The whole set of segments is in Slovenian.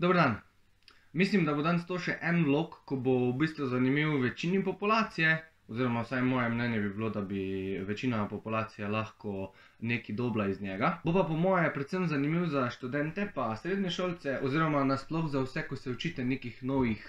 Dober dan. Mislim, da bo danes to še en vlog, ko bo v bistvu zanimiv večini populacije, oziroma vsaj moje mnenje bi bilo, da bi večina populacije lahko nekaj dobila iz njega. Bo pa po moje predvsem zanimiv za študente pa srednješolce, oziroma nasploh za vse, ko se učite nekih novih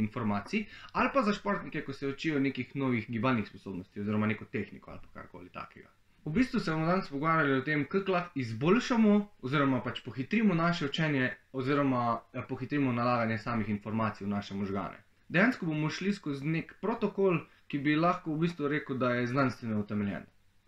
informacij, ali pa za športnike, ko se učijo nekih novih gibalnih sposobnosti, oziroma neko tehniko ali pa karkoli takega. V bistvu se bomo danes pogovarjali o tem, kako lahko izboljšamo oziroma pač pohitrimo naše učenje oziroma pohitrimo nalaganje samih informacij v naše možgane. Dejansko bomo šli skozi nek protokol, ki bi lahko v bistvu rekel, da je znanstveno utemeljen.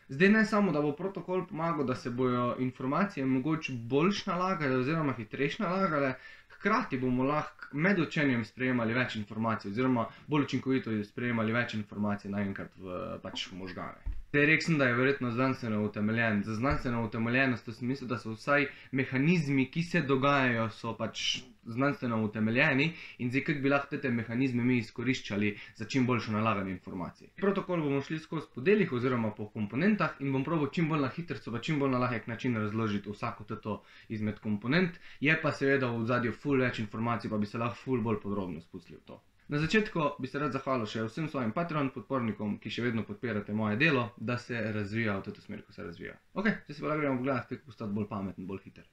Zdaj ne samo, da bo protokol pomagal, da se bojo informacije mogoče boljš nalagale oziroma hitrejš nalagale, hkrati bomo lahko med učenjem sprejemali več informacij oziroma bolj učinkovito sprejemali več informacij naenkrat v možgane. Zdaj rekel sem, da je verjetno znanstveno utemeljen. Za znanstveno utemeljenost v smislu, da so vsaj mehanizmi, ki se dogajajo, so pač znanstveno utemeljeni in zdaj kako bi lahko te mehanizme mi izkoriščali za čim boljšo nalaganje informacij. Protokol bomo šli skozi po delih oziroma po komponentah in bom probal čim bolj na hitrco pa čim bolj na lahek način razložiti vsako teto izmed komponent. Je pa seveda v ozadju ful več informacij, pa bi se lahko ful bolj podrobno spustili v to. Na začetku bi se rad zahvalil še vsem svojim Patreon podpornikom, ki še vedno podpirate moje delo, da se razvija v to smer, ko se razvija. Ok, zdaj se pa gremo pogledati, kako postati bolj pameten, bolj hiter.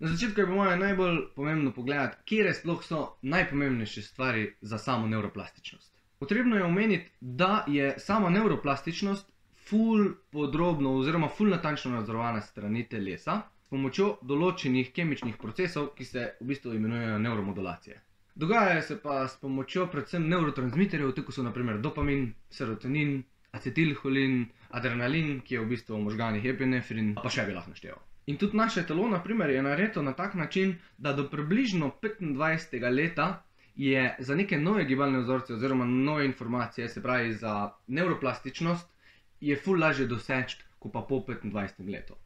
Na začetku je po moje najbolj pomembno pogledati, kje sploh so najpomembnejše stvari za samo nevroplastičnost. Potrebno je omeniti, da je sama nevroplastičnost ful podrobno oziroma ful natančno nadzorovana strani telesa s pomočjo določenih kemičnih procesov, ki se v bistvu imenujejo nevromodulacije. Dogajajo se pa s pomočjo predvsem nevrotransmiterjev, tako so na primer dopamin, serotonin, acetilholin, adrenalin, ki je v bistvu v možganih epinefrin, pa še bi lahko našteval. In tudi naše telo, na primer, je narejeno na tak način, da do približno 25. leta je za neke nove gibalne vzorce oziroma nove informacije, se pravi za nevroplastičnost, je ful lažje doseči, kot pa po 25. letu.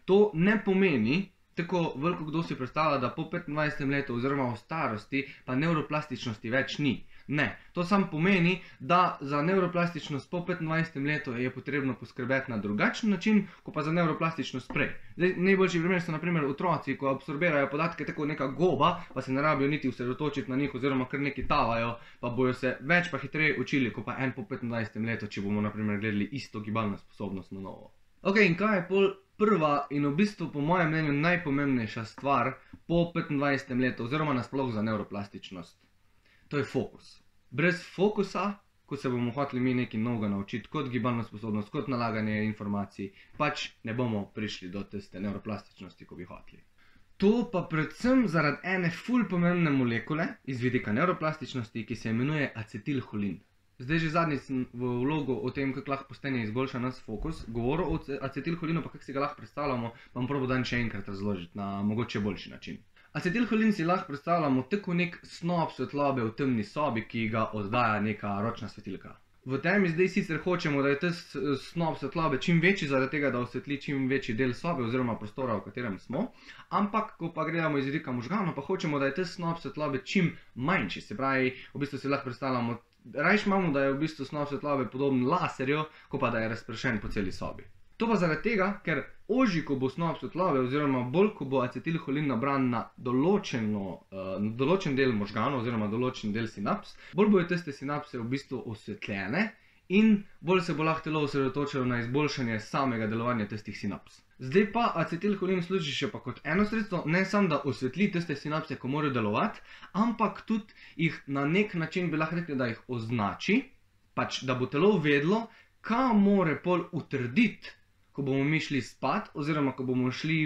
To ne pomeni, tako veliko kdo si predstavlja, da po 25. letu oziroma v starosti pa nevroplastičnosti več ni. Ne, to samo pomeni, da za nevroplastičnost po 25. letu je potrebno poskrbeti na drugačen način, kot pa za nevroplastičnost prej. Zdaj, najboljši primer so na primer otroci, ko absorbirajo podatke tako neka goba, pa se ne rabijo niti osredotočiti na njih oziroma kar neki tavajo, pa bojo se več pa hitreje učili, kot pa en po 25. letu, če bomo na primer gledali isto gibalno sposobnost na novo. Ok, in kaj je pol prva in v bistvu po mojem mnenju najpomembnejša stvar po 25. letu oziroma nasploh za nevroplastičnost? To je fokus. Brez fokusa, ko se bomo hoteli mi nekaj novega naučiti, kot gibalno sposobnost, kot nalaganje informacij, pač ne bomo prišli do tiste nevroplastičnosti, ko bi hoteli. To pa predvsem zaradi ene ful pomembne molekule iz vidika nevroplastičnosti, ki se imenuje acetilholin. Zdaj že zadnjič sem v vlogu o tem, kako lahko postane izboljša nas fokus, govoril o acetilholinu, pa kako si ga lahko predstavljamo, vam probo dan še enkrat razložiti na mogoče boljši način. Acetilholin si lahko predstavljamo tako nek snop svetlobe v temni sobi, ki ga oddaja neka ročna svetilka. V temi zdaj sicer hočemo, da je ta snop svetlobe čim večji, zaradi tega, da osvetli čim večji del sobe oziroma prostora, v katerem smo, ampak, ko pa gledamo iz vidika možganov, pa hočemo, da je ta snop svetlobe čim manjši, se pravi, v bistvu si lahko predstavljamo, rajš imamo, da je v bistvu snop svetlobe podoben laserju, ko pa da je razpršen po celi sobi. To pa zaradi tega, ker ožji, ko bo snop svetlobe oziroma bolj, ko bo acetilholin nabran na določen del možganov oziroma določen del sinaps, bolj bojo tiste sinapse v bistvu osvetljene in bolj se bo lahko telo osredotočilo na izboljšanje samega delovanja tistih sinaps. Zdaj pa acetilholin služi še pa kot eno sredstvo, ne samo da osvetli tiste sinapse, ko morajo delovati, ampak tudi jih na nek način bi lahko rekli, da jih označi, pač da bo telo vedlo, kaj more pol utrditi, ko bomo mi šli spat, oziroma ko bomo šli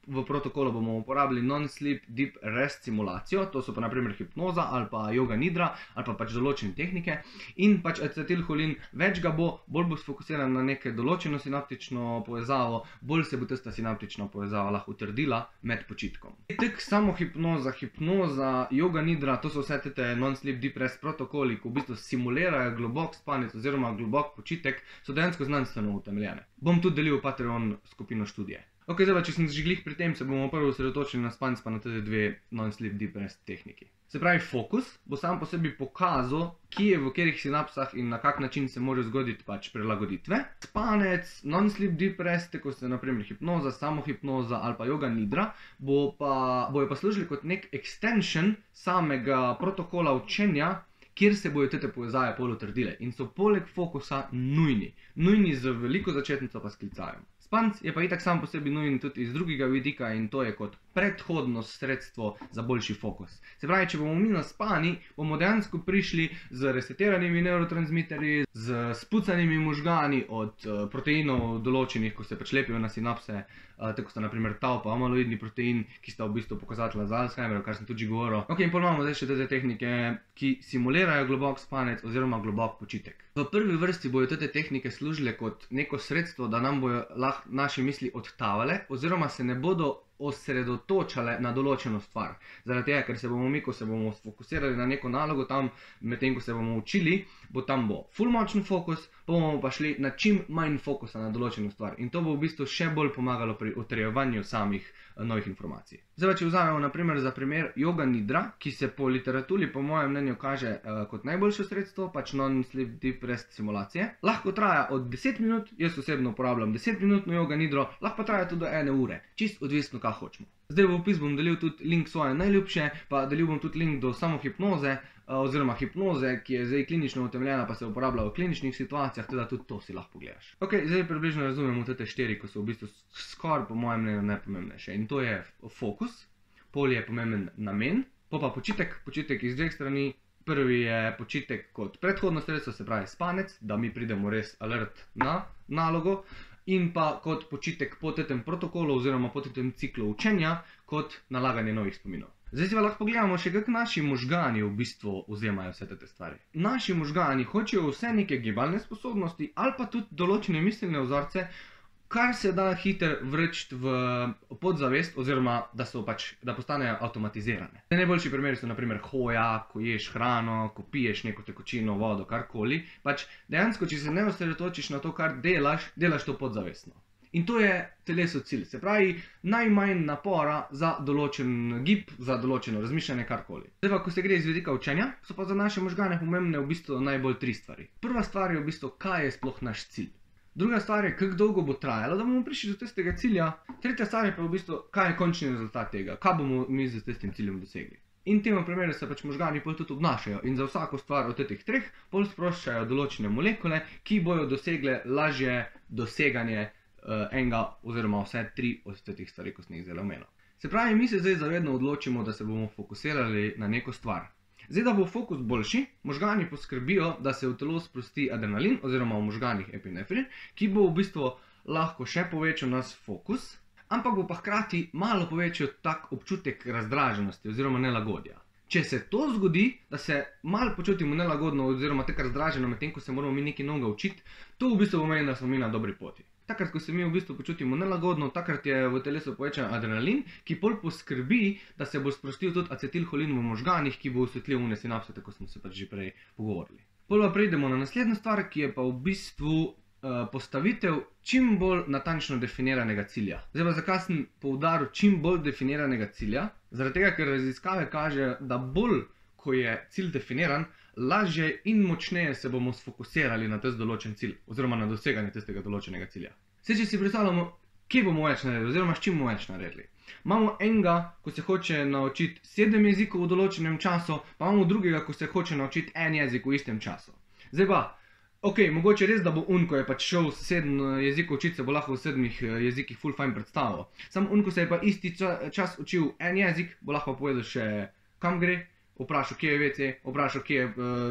v protokolu bomo uporabili non-sleep deep rest simulacijo, to so pa na primer hipnoza ali pa yoga nidra ali pa pač določene tehnike in pač acetilholin več ga bo, bolj bo sfokusiran na neke določeno sinaptično povezavo, bolj se bo tista sinaptična povezava lahko utrdila med počitkom. Tak samo hipnoza, yoga nidra, to so vse te non-sleep deep rest protokoli, ki v bistvu simulirajo globok spanec oziroma globok počitek, so dejansko znanstveno utemeljene. Bom tudi delil v Patreon skupino študije. Ok, zdaj pa, če sem že glih pri tem, se bomo prvo osredotočili na spanec pa na te dve non-sleep deep rest tehniki. Se pravi, fokus bo sam po sebi pokazal, kje v katerih sinapsah in na kak način se morajo zgoditi pač prilagoditve. Spanec, non-sleep deep rest, kot so naprimer hipnoza, samohipnoza ali pa yoga nidra, bojo pa služili kot nek extension samega protokola učenja, kjer se bojo te povezave pol utrdile in so poleg fokusa nujni. Nujni z veliko začetnico pa s klicajem. Spanec je pa itak sam po sebi nujen tudi iz drugega vidika in to je kot predhodno sredstvo za boljši fokus. Se pravi, če bomo mi naspani, bomo dejansko prišli z resetiranimi neurotransmiterji, z spucanimi možgani od proteinov določenih, ko se pač lepijo na sinapse, tako sta naprimer tau pa amaloidni protein, ki sta v bistvu pokazatelja za Alzheimerja, kar sem tudi že govoril. Ok, in pol imamo zdaj še te tehnike, ki simulirajo globok spanec oziroma globok počitek. V prvi vrsti bojo te tehnike služile kot neko sredstvo, da nam bojo lahko naše misli odtavale oziroma se ne bodo osredotočale na določeno stvar. Zaradi tega, ker se bomo mi, ko se bomo fokusirali na neko nalogo tam, medtem ko se bomo učili, bo ful močen fokus, bomo pa šli na čim manj fokusa na določeno stvar. In to bo v bistvu še bolj pomagalo pri utrjevanju samih novih informacij. Zdaj pa, če vzamemo naprimer za primer yoga nidra, ki se po literaturi po mojem mnenju kaže kot najboljše sredstvo, pač non-sleep deep rest simulacije. Lahko traja od 10 minut, jaz osebno uporabljam 10-minutno yoga nidro, lahko pa traja tudi do 1 ure, čist odvisno, kaj hočemo. Zdaj v opis bom delil tudi link svoje najljubše, pa delil bom tudi link do samohipnoze, oziroma hipnoze, ki je zdaj klinično utemeljena, pa se uporablja v kliničnih situacijah, teda tudi to si lahko pogledaš. Ok, zdaj približno razumemo te 4, ko so v bistvu skoraj po mojem mnenju najpomembnejše. In to je fokus, pol je pomemben namen, pa počitek, počitek iz dveh strani. Prvi je počitek kot predhodno sredstvo, se pravi spanec, da mi pridemo res alert na nalogo. In pa kot počitek po tem protokolu oziroma po tem ciklu učenja, kot nalaganje novih spominov. Zdaj si pa lahko pogledamo še, kako naši možgani v bistvu vzemajo vse te stvari. Naši možgani hočejo vse neke gibalne sposobnosti ali pa tudi določene miselne vzorce, kar se da hitro vreči v podzavest oziroma da postanejo avtomatizirane. Najboljši primeri so naprimer hoja, ko ješ hrano, ko piješ neko tekočino, vodo, karkoli. Pač dejansko, če se ne osredotočiš na to, kar delaš, delaš to podzavestno. In to je telesu cilj. Se pravi, najmanj napora za določen gib, za določeno razmišljanje, karkoli. Zdaj pa, ko se gre iz vidika učenja, so pa za naše možgane pomembne v bistvu najbolj 3 stvari. Prva stvar je v bistvu, kaj je sploh naš cilj. Druga stvar je, kako dolgo bo trajalo, da bomo prišli do tistega cilja. Tretja stvar je pa v bistvu, kaj je končni rezultat tega, kaj bomo mi z tistim ciljem dosegli. In v tem primeru se pač možgani pol tudi obnašajo in za vsako stvar od teh 3 pol sproščajo določene molekule, ki bojo dosegle lažje doseganje enega oziroma vse 3 od teh stvari, ko sem jih zdaj omenil. Se pravi, mi se zdaj zavedno odločimo, da se bomo fokusirali na neko stvar. Zdaj, da bo fokus boljši, možgani poskrbijo, da se v telo sprosti adrenalin oziroma v možganih epinefrin, ki bo v bistvu lahko še povečal nas fokus, ampak bo pa hkrati malo povečal tak občutek razdraženosti oziroma nelagodja. Če se to zgodi, da se malo počutimo nelagodno oziroma tako razdraženo medtem, ko se moramo mi nekaj novega učiti, to v bistvu pomeni, da smo mi na dobri poti. Takrat, ko se mi v bistvu počutimo nelagodno, takrat je v telesu povečan adrenalin, ki pol poskrbi, da se bo sprostil tudi acetilholin v možganih, ki bo osvetlil une sinapse, tako smo se pač že prej pogovorili. Pol pa prejdemo na naslednjo stvar, ki je pa v bistvu postavitev čim bolj natančno definiranega cilja. Zdaj pa zakaj sem poudaril čim bolj definiranega cilja? Zaradi tega, ker raziskave kažejo, da bolj, ko je cilj definiran, lažje in močneje se bomo sfokusirali na tisti določen cilj oziroma na doseganje tistega določenega cilja. Zdaj, če si predstavljamo, kje bomo več naredili oziroma s čim bomo več naredili. Imamo enega, ko se hoče naučiti 7 jezikov v določenem času, pa imamo drugega, ko se hoče naučiti 1 jezik v istem času. Zdaj pa, ok, mogoče res, da bo ko je pač šel 7 jezikov učiti, se bo lahko v 7 jezikih ful fajn predstavil. Sam ko se je pa isti čas učil 1 jezik, bo lahko povedal še kam gre, vprašal, kje je WC, vprašal, kje je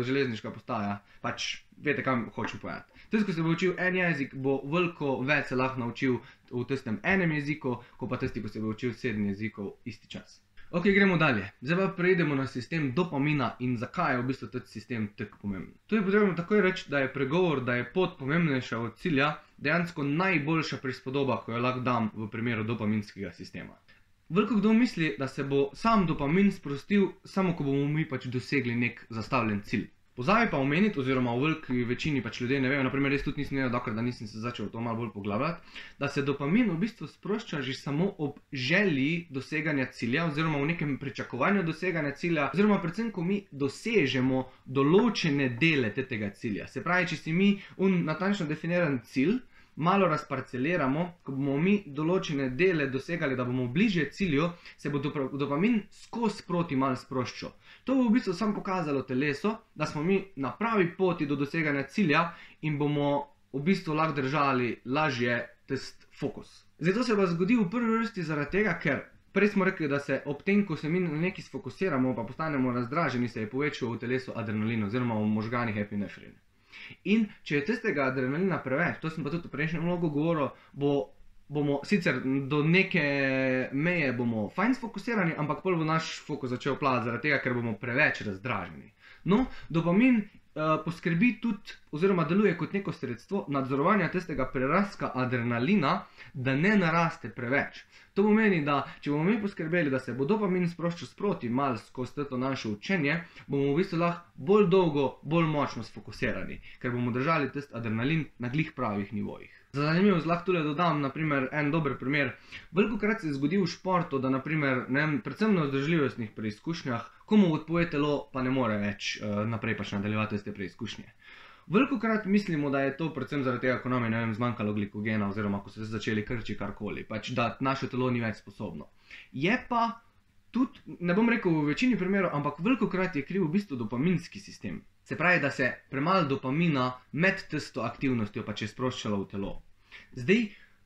železniška postaja, pač veste, kam hočem povedati. Tisti, ko se bo učil 1 jezik, bo veliko več se lahko naučil v tistem 1 jeziku, kot pa tisti, ko se bo učil 7 jezikov isti čas. Ok, gremo dalje. Zdaj pa prejdemo na sistem dopamina in zakaj je v bistvu ta sistem tako pomemben. Tu je potrebno takoj reči, da je pregovor, da je pot pomembnejša od cilja, dejansko najboljša prispodoba, ko jo lahko dam v primeru dopaminskega sistema. Veliko kdo misli, da se bo sam dopamin sprostil, samo ko bomo mi pač dosegli nek zastavljen cilj. Pozabi pa omeniti, oziroma v veliki večini pač ljudje ne vejo, naprimer jaz tudi nisem vedel, dokler da nisem se začel to malo bolj poglabljati, da se dopamin v bistvu sprošča že samo ob želji doseganja cilja, oziroma v nekem pričakovanju doseganja cilja, oziroma predvsem, ko mi dosežemo določene dele tega cilja. Se pravi, če si mi natančno definiran cilj malo razparceliramo, ko bomo mi določene dele dosegali, da bomo bližje cilju, se bo dopamin skozi proti malo sproščal. To bo v bistvu samo pokazalo telesu, da smo mi na pravi poti do doseganja cilja in bomo v bistvu lahko držali lažje tisti fokus. Zdaj to se pa zgodi v prvi vrsti zaradi tega, ker prej smo rekli, da se ob tem, ko se mi na nekaj sfokusiramo, pa postanemo razdraženi, se je povečal v telesu adrenalin oziroma v možganih epinefrin. In če je tistega adrenalina preveč, to sem pa tudi v prejšnjem vlogu govoril, bomo sicer do neke meje bomo fajn sfokusirani, ampak pol bo naš fokus začel plavati zaradi tega, ker bomo preveč razdraženi. No, dopamin poskrbi tudi, oziroma deluje kot neko sredstvo nadzorovanja tistega prerastka adrenalina, da ne naraste preveč. To pomeni, da če bomo mi poskrbeli, da se bo dopamin sproščal sproti malo skozi to naše učenje, bomo v bistvu lahko bolj dolgo, bolj močno sfokusirani, ker bomo držali tisti adrenalin na glih pravih nivojih. Za zanimivost lahko tule dodam, naprimer, en dober primer. Velikokrat se zgodi v športu, da naprimer, predvsem na vzdržljivostnih preizkušnjah, komu odpove telo, pa ne more več naprej pač nadaljevati te preizkušnje. Velikokrat mislimo, da je to predvsem zaradi tega, ko nam je zmanjkalo glikogena, oziroma ko so se začeli krči karkoli, pač da naše telo ni več sposobno. Je pa tudi, ne bom rekel v večini primerov, ampak velikokrat je kriv v bistvu dopaminski sistem. Se pravi, da se premalo dopamina med tisto aktivnostjo pač je sproščalo v telo. Zdaj,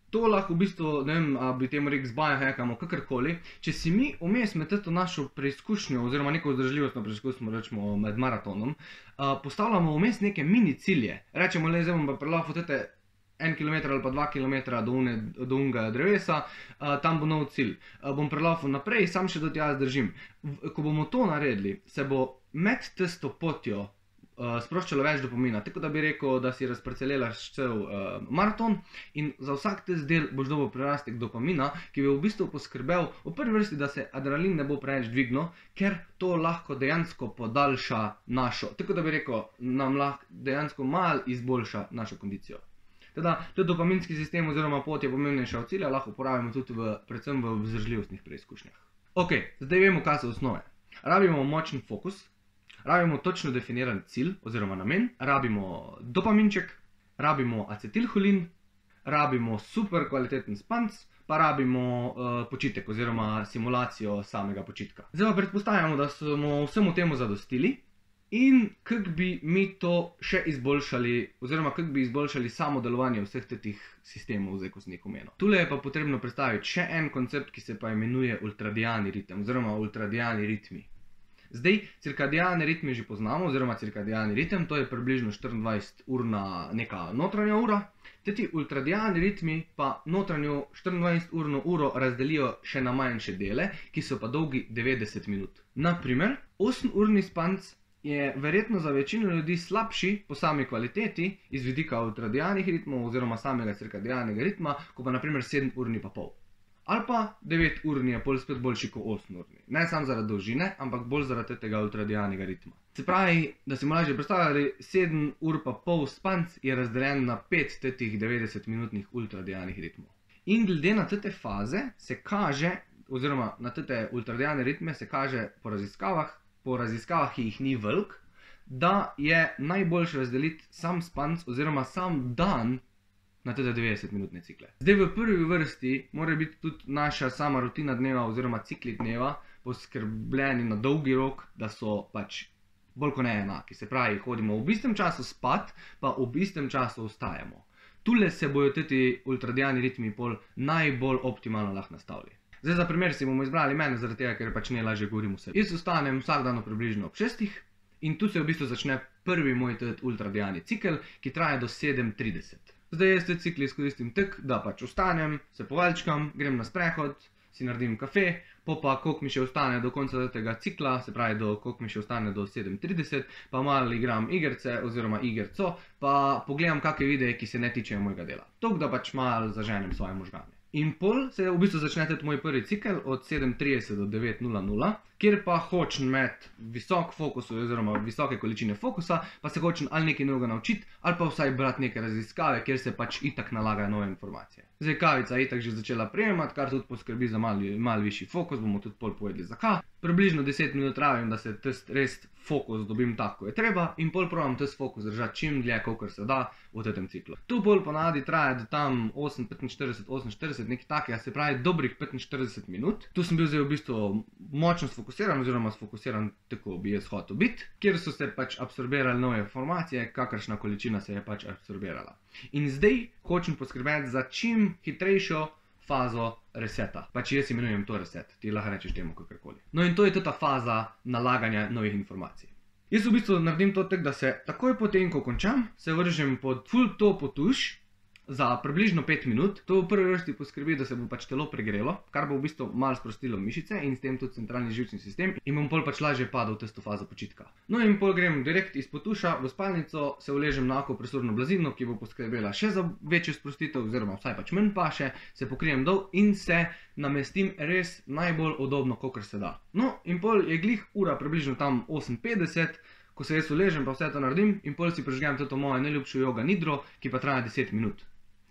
to lahko v bistvu, ne vem, bi temu rekel zbiohackamo, kakorkoli, če si mi vmes med to našo preizkušnjo, oziroma neko vzdržljivostno preizkušnjo, rečemo med maratonom, postavljamo vmes neke mini cilje. Rečemo, le zdaj bom pa prelaufen tete 1 km ali pa 2 km do unga drevesa, tam bo nov cilj. Bom prelaufen naprej, sam še do tja zdržim. Ko bomo to naredili, se bo med tisto potjo sproščalo več dopamina, tako da bi rekel, da si razparceliraš cel maraton in za vsak tisti del boš dobil prerastek dopamina, ki bi v bistvu poskrbel v prvi vrsti, da se adrenalin ne bo preveč dvignil, ker to lahko dejansko podaljša našo, tako da bi rekel, nam lahko dejansko malo izboljša našo kondicijo. Teda, tudi dopaminski sistem oziroma pot je pomembnejša od cilja, lahko uporabimo tudi predvsem v vzdržljivostnih preizkušnjah. Ok, zdaj vemo, kaj so osnove. Rabimo močen fokus, rabimo točno definiran cilj oziroma namen, rabimo dopaminček, rabimo acetilholin, rabimo super kvaliteten spanc, pa rabimo počitek oziroma simulacijo samega počitka. Zdaj pa predpostavljamo, da smo vsemu temu zadostili in kako bi mi to še izboljšali, oziroma kako bi izboljšali samo delovanje vseh teh sistemov, zdaj ko sem jih omenil. Tule je pa potrebno predstaviti še en koncept, ki se pa imenuje ultradiani ritem oziroma ultradiani ritmi. Zdaj, cirkadijalne ritme že poznamo, oziroma cirkadijalni ritem, to je približno 24-urna neka notranja ura. Ti ultradijalni ritmi pa notranjo 24-urno uro razdelijo še na manjše dele, ki so pa dolgi 90 minut. Naprimer, 8-urni spanc je verjetno za večino ljudi slabši po sami kvaliteti iz vidika ultradijalnih ritmov oziroma samega cirkadijalnega ritma, ko pa naprimer 7-urni pa pol. Ali pa 9-urni je pol spet boljši kot 8-urni. Ne samo zaradi dolžine, ampak bolj zaradi tega ultradijalnega ritma. Se pravi, da si mu lažje predstavljali, 7 ur pa pol spanc je razdeljen na 5 tetih 90-minutnih ultradijalnih ritmov. In glede na te faze se kaže, oziroma na te ultradijalne ritme se kaže po raziskavah, ki jih ni veliko, da je najboljše razdeliti sam spanc oziroma sam dan na te 90-minutne cikle. Zdaj v prvi vrsti mora biti tudi naša sama rutina dneva oziroma cikli dneva poskrbljeni na dolgi rok, da so pač bolj kot ne enaki. Se pravi, hodimo v istem času spat, pa v istem času vstajamo. Tule se bojo ti ultradijalni ritmi pol najbolj optimalno lahko nastavili. Zdaj za primer si bomo izbrali mene, zaradi tega, ker pač najlažje govorim vse. Jaz vstanem vsak dan približno ob 6 in tu se v bistvu začne prvi moj ultradijalni cikel, ki traja do 7:30. Zdaj jaz te cikli izkoristim tako, da pač vstanem, se povaljčkam, grem na sprehod, si naredim kafe, pa koliko mi še ostane do konca tega cikla, se pravi, koliko mi še ostane do 7:30, pa malo igram igrice oziroma igerco, pa pogledam kakšne videe, ki se ne tičejo mojega dela. Toliko, da pač malo zaženem svoje možgane. In pol se v bistvu začne tudi moj prvi cikel od 7:30 do 9:00, kjer pa hočem imeti visok fokus oziroma visoke količine fokusa, pa se hočem ali nekaj novega naučiti, ali pa vsaj brati neke raziskave, kjer se pač itak nalagajo nove informacije. Zdaj kavica je itak že začela prejemati, kar tudi poskrbi za malo višji fokus, bomo tudi pol povedali zakaj. Približno 10 minut rabim, da se res fokus dobim tako, ko je treba, in pol probam tisti fokus držati čim dlje, kolikor se da v tem ciklu. Tu pol ponavadi traja do tam 8:45, nekaj takega, se pravi dobrih 45 minut. Tu sem bil zdaj v bistvu močno sfokusiran oziroma sfokusiran tako bi jaz hotel biti, kjer so se pač absorbirale nove informacije, kakršna količina se je pač absorbirala. In zdaj hočem poskrbeti za čim hitrejšo fazo reseta. Pač jaz imenujem to reset, ti lahko rečeš temu kakorkoli. No in to je ta faza nalaganja novih informacij. Jaz v bistvu naredim to tako, da se takoj potem, ko končam, se vržem pod full topo tuš za približno 5 minut. To v prvi vrsti poskrbi, da se bo pač telo pregrelo, kar bo v bistvu malo sprostilo mišice in s tem tudi centralni živčni sistem in bom pol pač lažje padel v tisto fazo počitka. No in pol grem direkt izpod tuša v spalnico, se uležem na akupresurno blazino, ki bo poskrbela še za večjo sprostitev oziroma vsaj pač manj paše, se pokrijem dol in se namestim res najbolj udobno, kakor se da. No in pol je glih ura približno tam 8:50, ko se jaz uležem pa vse to naredim in pol si prižgem to mojo najljubšo joga nidro, ki pa traja 10 minut.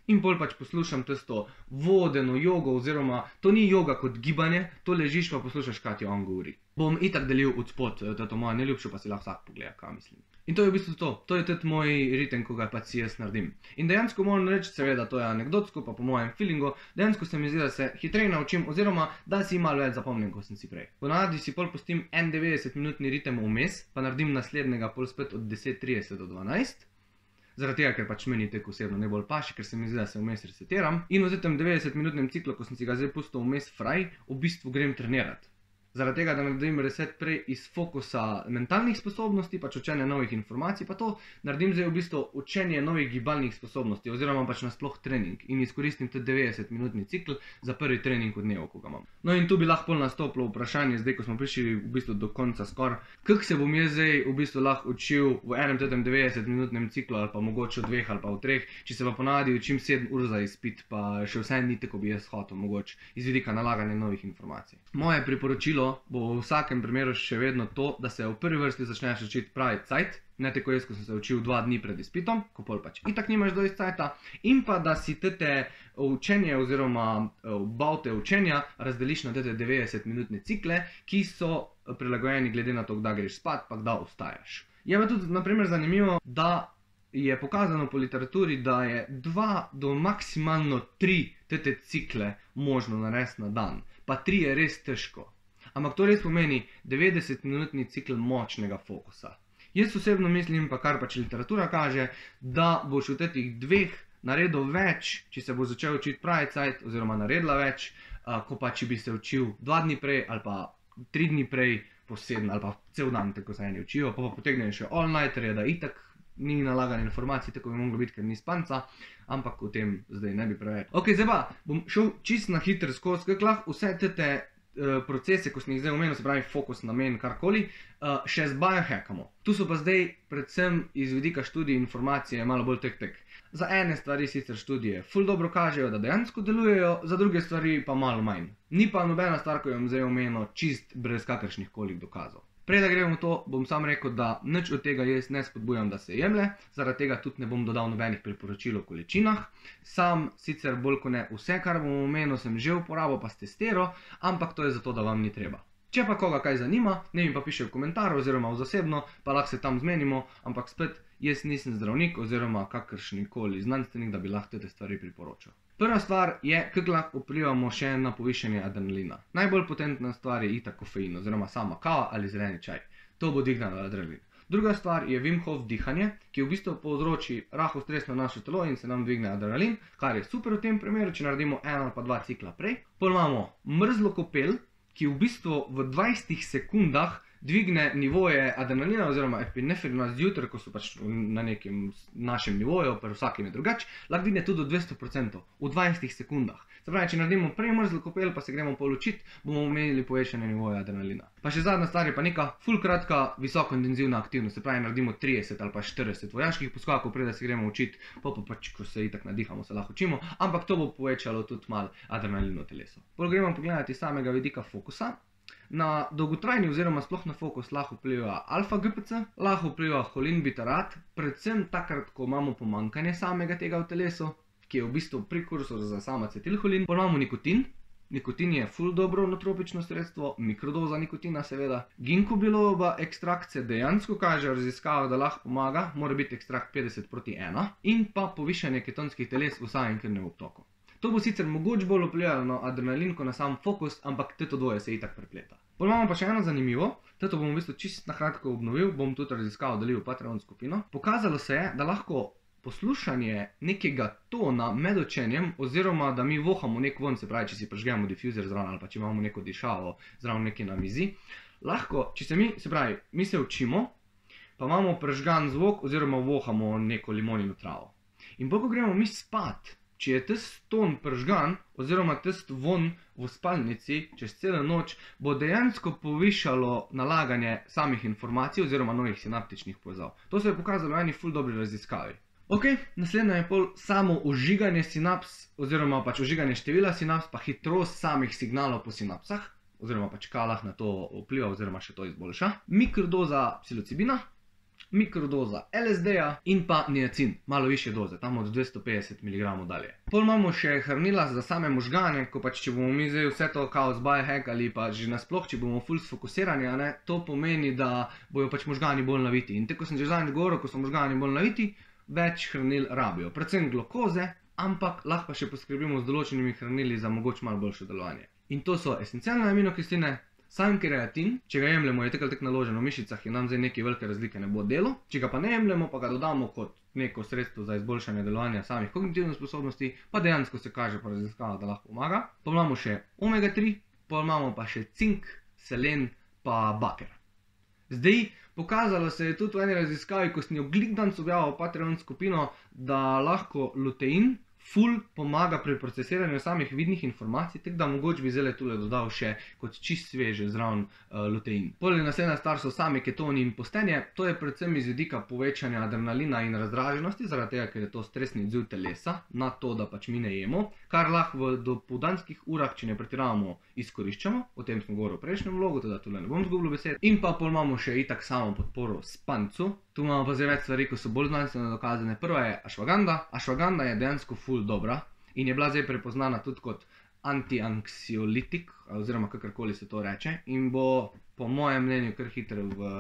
In pol pač poslušam tisto vodeno jogo, oziroma to ni joga kot gibanje, to ležiš pa poslušaš, kaj ti on govori. Bom itak delil od spod to mojo najljubšo, pa si lahko vsak pogleda, kaj mislim. In to je v bistvu to je tudi moj ritem, ko ga pač si jaz naredim. In dejansko moram reči, seveda to je anekdotsko, pa po mojem feelingu, dejansko se mi zdi, da se hitreje naučim, oziroma da si malo več zapomnim, kot sem si prej. Ponavadi si pol pustim 90-minutni ritem vmes, pa naredim naslednjega pol spet od 10:30 do 12. Zaradi tega, ker pač meni tek osebno najbolj paši, ker se mi zdi, da se vmes resetiram. In v tem 90-minutnem ciklu, ko sem si ga zdaj pustil vmes fraj, v bistvu grem trenirati. Zaradi tega, da naredim reset prej iz fokusa mentalnih sposobnosti, pač učenja novih informacij, pa to naredim zdaj v bistvu učenje novih gibalnih sposobnosti, oziroma pač nasploh trening in izkoristim tudi 90-minutni cikl za prvi trening v dnevu, ko ga imam. No in tu bi lahko nastopilo vprašanje, zdaj ko smo prišli v bistvu do konca skoraj, kako se bom jaz zdaj v bistvu lahko učil v enem tem 90-minutnem ciklu ali pa mogoče v 2 ali pa v 3, če se pa ponavadi učim 7 ur za izpit, pa še vse ni tako, bi jaz hotel mogoče iz vidika nalaganja novih informacij. Moje priporočilo bo v vsakem primeru še vedno to, da se v prvi vrsti začneš učiti pravi cajt, ne tako jaz, ko sem se učil 2 dni pred izpitom, ko pol pač itak nimaš dosti cajta, in pa da si te učenje oziroma baute učenja razdeliš na te 90-minutne cikle, ki so prilagojeni glede na to, kdaj greš spat, pa kdaj vstajaš. Je pa tudi naprimer zanimivo, da je pokazano po literaturi, da je 2 do maksimalno 3 te cikle možno narediti na dan, pa 3 je res težko. Ampak to res pomeni 90-minutni cikl močnega fokusa. Jaz osebno mislim, pa kar pač literatura kaže, da boš v teh 2 naredil več, če se bo začel učiti pravi cajt, oziroma naredila več, ko pa če bi se učil 2 dni prej ali pa 3 dni prej po 7 ali pa cel dan, tako se eni učijo, pa potegnejo še all-nighterje, da itak ni nalagane informacije, tako bi moglo biti, ker ni spanca, ampak o tem zdaj ne bi preveč. Ok, zdaj pa bom šel čisto na hitro skozi, kako lahko vse te procese, ko sem jih zdaj omenil, se pravi fokus, namen, karkoli, še z biohackamo. Tu so pa zdaj predvsem iz vidika študij informacije malo bolj tek. Za ene stvari sicer študije ful dobro kažejo, da dejansko delujejo, za druge stvari pa malo manj. Ni pa nobena stvar, ko jo bom zdaj omenil, čist brez kakršnih koli dokazov. Prej da gremo v to, bom sam rekel, da nič od tega jaz ne spodbujam, da se jemlje, zaradi tega tudi ne bom dodal nobenih priporočil o količinah. Sam sicer bolj kot ne vse, kar bom omenil, sem že uporabil pa testiral, ampak to je zato, da vam ni treba. Če pa koga kaj zanima, ne mi pa piše v komentar oziroma v zasebno, pa lahko se tam zmenimo, ampak spet jaz nisem zdravnik oziroma kakršnikoli znanstvenik, da bi lahko te stvari priporočal. Prva stvar je, kako lahko vplivamo še na povišanje adrenalina. Najbolj potentna stvar je itak kofein oziroma sama kava ali zeleni čaj. To bo dvignilo adrenalin. Druga stvar je Wim Hof dihanje, ki v bistvu povzroči rahel stres na naše telo in se nam dvigne adrenalin, kar je super v tem primeru, če naredimo 1 ali pa 2 cikla prej. Potem imamo mrzlo kopel, ki v bistvu v 20 sekundah dvigne nivoje adrenalina oziroma epinefrina zjutraj, ko so pač na nekem našem nivoju, pa vsakem je drugače, lahko dvigne tudi do 200% v 20 sekundah. Se pravi, če naredimo premrzlo kopel, pa se gremo polučiti, bomo imeli povečanje nivoja adrenalina. Pa še zadnja stvar je pa neka ful kratka, visokointenzivna aktivnost, se pravi, naredimo 30 ali pa 40 vojaških poskakov, preden se gremo učiti, pa pač, ko se itak nadihamo, se lahko učimo, ampak to bo povečalo tudi malo adrenalin v telesu. Pol gremo pogledati iz samega vidika fokusa. Na dolgotrajni oziroma sploh na fokus lahko vpliva alfa-GPC, lahko vpliva holinbutarat, predvsem takrat, ko imamo pomanjkanje samega tega v telesu, ki je v bistvu prekursor za sam acetilholin. Pol imamo nikotin. Nikotin je ful dobro nootropično sredstvo, mikrodoza nikotina seveda. Ginkgo-bilobova ekstrakt se dejansko kaže v raziskavah, da lahko pomaga, mora biti ekstrakt 50:1 in pa povišanje ketonskih teles v samem krvnem obtoku. To bo sicer mogoče bolj vplivalo na adrenalin, kot na sam fokus, ampak to dvoje se itak prepleta. Pol imamo pa še eno zanimivo, to bom v bistvu čisto na kratko obnovil, bom tudi raziskavo delil v Patreon skupino. Pokazalo se je, da lahko poslušanje nekega tona med učenjem, oziroma da mi vohamo nek von, se pravi, če si prižgemo difuzer zraven ali pa če imamo neko dišavo zraven nekaj na mizi, lahko, če se mi se učimo, pa imamo prižgan zvok oziroma vohamo neko limonino travo. In bolj, ko gremo mi spat, če je tisti ton prižgan oziroma tisti von v spalnici čez celo noč, bo dejansko povišalo nalaganje samih informacij oziroma novih sinaptičnih povezav. To se je pokazalo v eni ful dobri raziskavi. Ok, naslednje je pol samo ožiganje sinaps oziroma pač ožiganje števila sinaps pa hitrost samih signalov po sinapsah oziroma pač kalah na to vpliva oziroma še to izboljša. Mikrodoza psilocibina, mikrodoza LSD-ja in pa niacin, malo više doze, tam od 250 mg dalje. Pol imamo še hranila za same možgane, ko pač če bomo mi zdaj vse to kao z biohack ali pa že nasploh, če bomo ful sfokusirani, to pomeni, da bojo pač možgani bolj naviti. In tako sem že zadnjič govoril, ko so možgani bolj naviti, več hranil rabijo, predvsem glukoze, ampak lahko pa še poskrbimo z določenimi hranili za mogoče malo boljše delovanje. In to so esencialne aminokisline, sam kreatin, če ga jemljemo, je tako naložen v mišicah in nam zdaj neke velike razlike ne bo delo, če ga pa ne jemljemo, pa ga dodamo kot neko sredstvo za izboljšanje delovanja samih kognitivnih sposobnosti, pa dejansko se kaže po raziskavah, da lahko pomaga. Pa imamo še omega 3, pa imamo pa še cink, selen pa baker. Zdaj, pokazalo se je tudi v eni raziskavi, ko sem jo glikdanc objavil v Patreon skupino, da lahko lutein ful pomaga pri procesiranju samih vidnih informacij, tako da mogoče bi zdaj tule dodal še kot čist sveže zraven lutein. Poleg naslednja stvar so sami ketoni in postenje, to je predvsem iz vidika povečanja adrenalina in razdraženosti, zaradi tega, ker je to stresni odziv telesa na to, da pač mi ne jemo, kar lahko v dopoldanskih urah, če ne pretiravamo, izkoriščamo, o tem smo govorili v prejšnjem vlogu, teda tule ne bom zgubil besed. In pa pol imamo še itak samo podporo spancu. Tu imamo pa zdaj več stvari, ko so bolj znanstveno dokazane. Prva je ašvaganda. Ašvaganda je dejansko ful dobra in je bila zdaj prepoznana tudi kot antianksiolitik, oziroma kakorkoli se to reče, in bo po mojem mnenju kar hitro v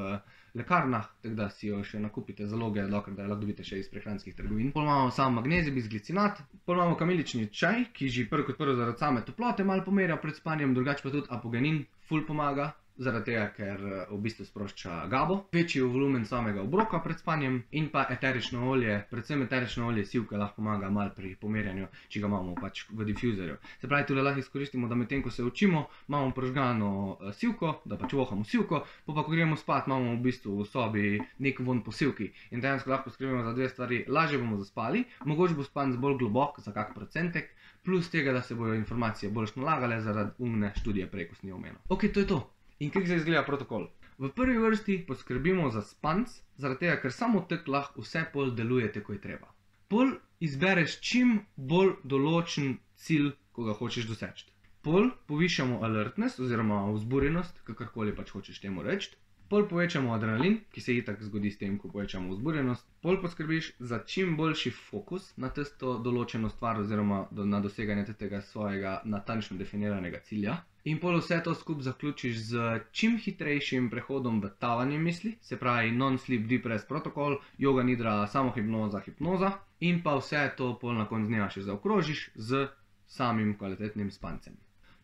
lekarnah, tako da si jo še nakupite zaloge, dokler da jo lahko dobite še iz prehranskih trgovin. Pol imamo samo magnezij bisglicinat, pol imamo kamilični čaj, ki že prvo kot prvo zaradi same toplote malo pomerja pred spanjem, drugače pa tudi apogenin ful pomaga, zaradi tega, ker v bistvu sprošča GABO, večji volumen samega obroka pred spanjem in pa eterično olje, predvsem eterično olje sivke lahko pomaga malo pri pomerjanju, če ga imamo pač v difuzorju. Se pravi, tule lahko izkoristimo, da medtem, ko se učimo, imamo prižgano sivko, da pač vohamo sivko, pa ko gremo spat, imamo v bistvu v sobi nek von po sivki in dejansko lahko skrbimo za dve stvari, lažje bomo zaspali, mogoče bo spanc bolj globok za kak procentek, plus tega, da se bojo informacije boljš nalagale zaradi umne študije prej, ko sem jo omenil. Ok, to je to. In kako se izgleda protokol? V prvi vrsti poskrbimo za spanc, zaradi tega, ker samo tako lahko vse pol deluje tako je treba. Pol izbereš čim bolj določen cilj, ko ga hočeš doseči. Pol povišamo alertness oziroma vzburjenost, kakorkoli pač hočeš temu reči. Pol povečamo adrenalin, ki se itak zgodi s tem, ko povečamo vzburjenost. Pol poskrbiš za čim boljši fokus na tisto določeno stvar oziroma na doseganje tega svojega natančno definiranega cilja. In pol vse to skupaj zaključiš z čim hitrejšim prehodom v tavanje misli, se pravi non-sleep deep rest protokol, yoga nidra, samohipnoza, hipnoza in pa vse to pol na koncu dneva še zaokrožiš z samim kvalitetnim spancem.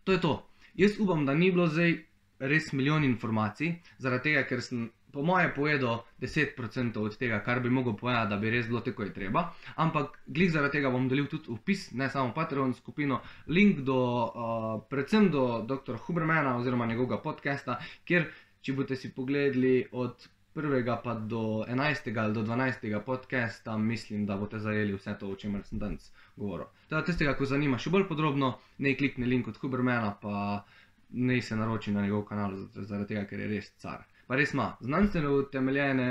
To je to. Jaz upam, da ni bilo zdaj res milijon informacij, zaradi tega, ker sem po moje povedal 10% od tega, kar bi mogel povedati, da bi res bilo tako je treba, ampak glih zaradi tega bom delil tudi vpis, ne samo Patreon skupino, link do, predvsem do dr. Hubermana oziroma njegovega podcasta, kjer če boste si pogledali od 1. pa do 11. ali do 12. podcasta, mislim, da boste zajeli vse to, o čemer sem danes govoril. Teda tistega, ko zanima še bolj podrobno, naj klikne link od Hubermana, pa naj se naroči na njegov kanal, zaradi tega, ker je res car. Pa res ima znanstveno utemeljene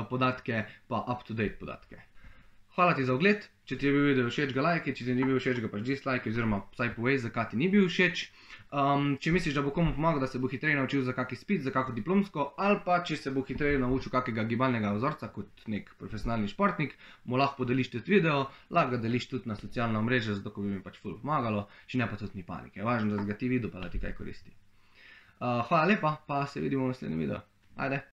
podatke, pa up-to-date podatke. Hvala ti za ogled, če ti je bil video všeč, ga lajki, če ti ni bil všeč, ga pač dislajki, oziroma vsaj povej, zakaj ti ni bil všeč. Če misliš, da bo komu pomagal, da se bo hitreje naučil za kak izpit, za kako diplomsko, ali pa če se bo hitreje naučil kakega gibalnega vzorca kot nek profesionalni športnik, mu lahko podeliš tudi video, lahko ga deliš tudi na socialna omrežja, zato ko bi mi pač ful pomagalo, če ne pa tudi ni panike. Važno, da si ga ti videl, pa da ti kaj koristi. Hvala lepa, pa se vidimo v naslednjem videu. Ajde!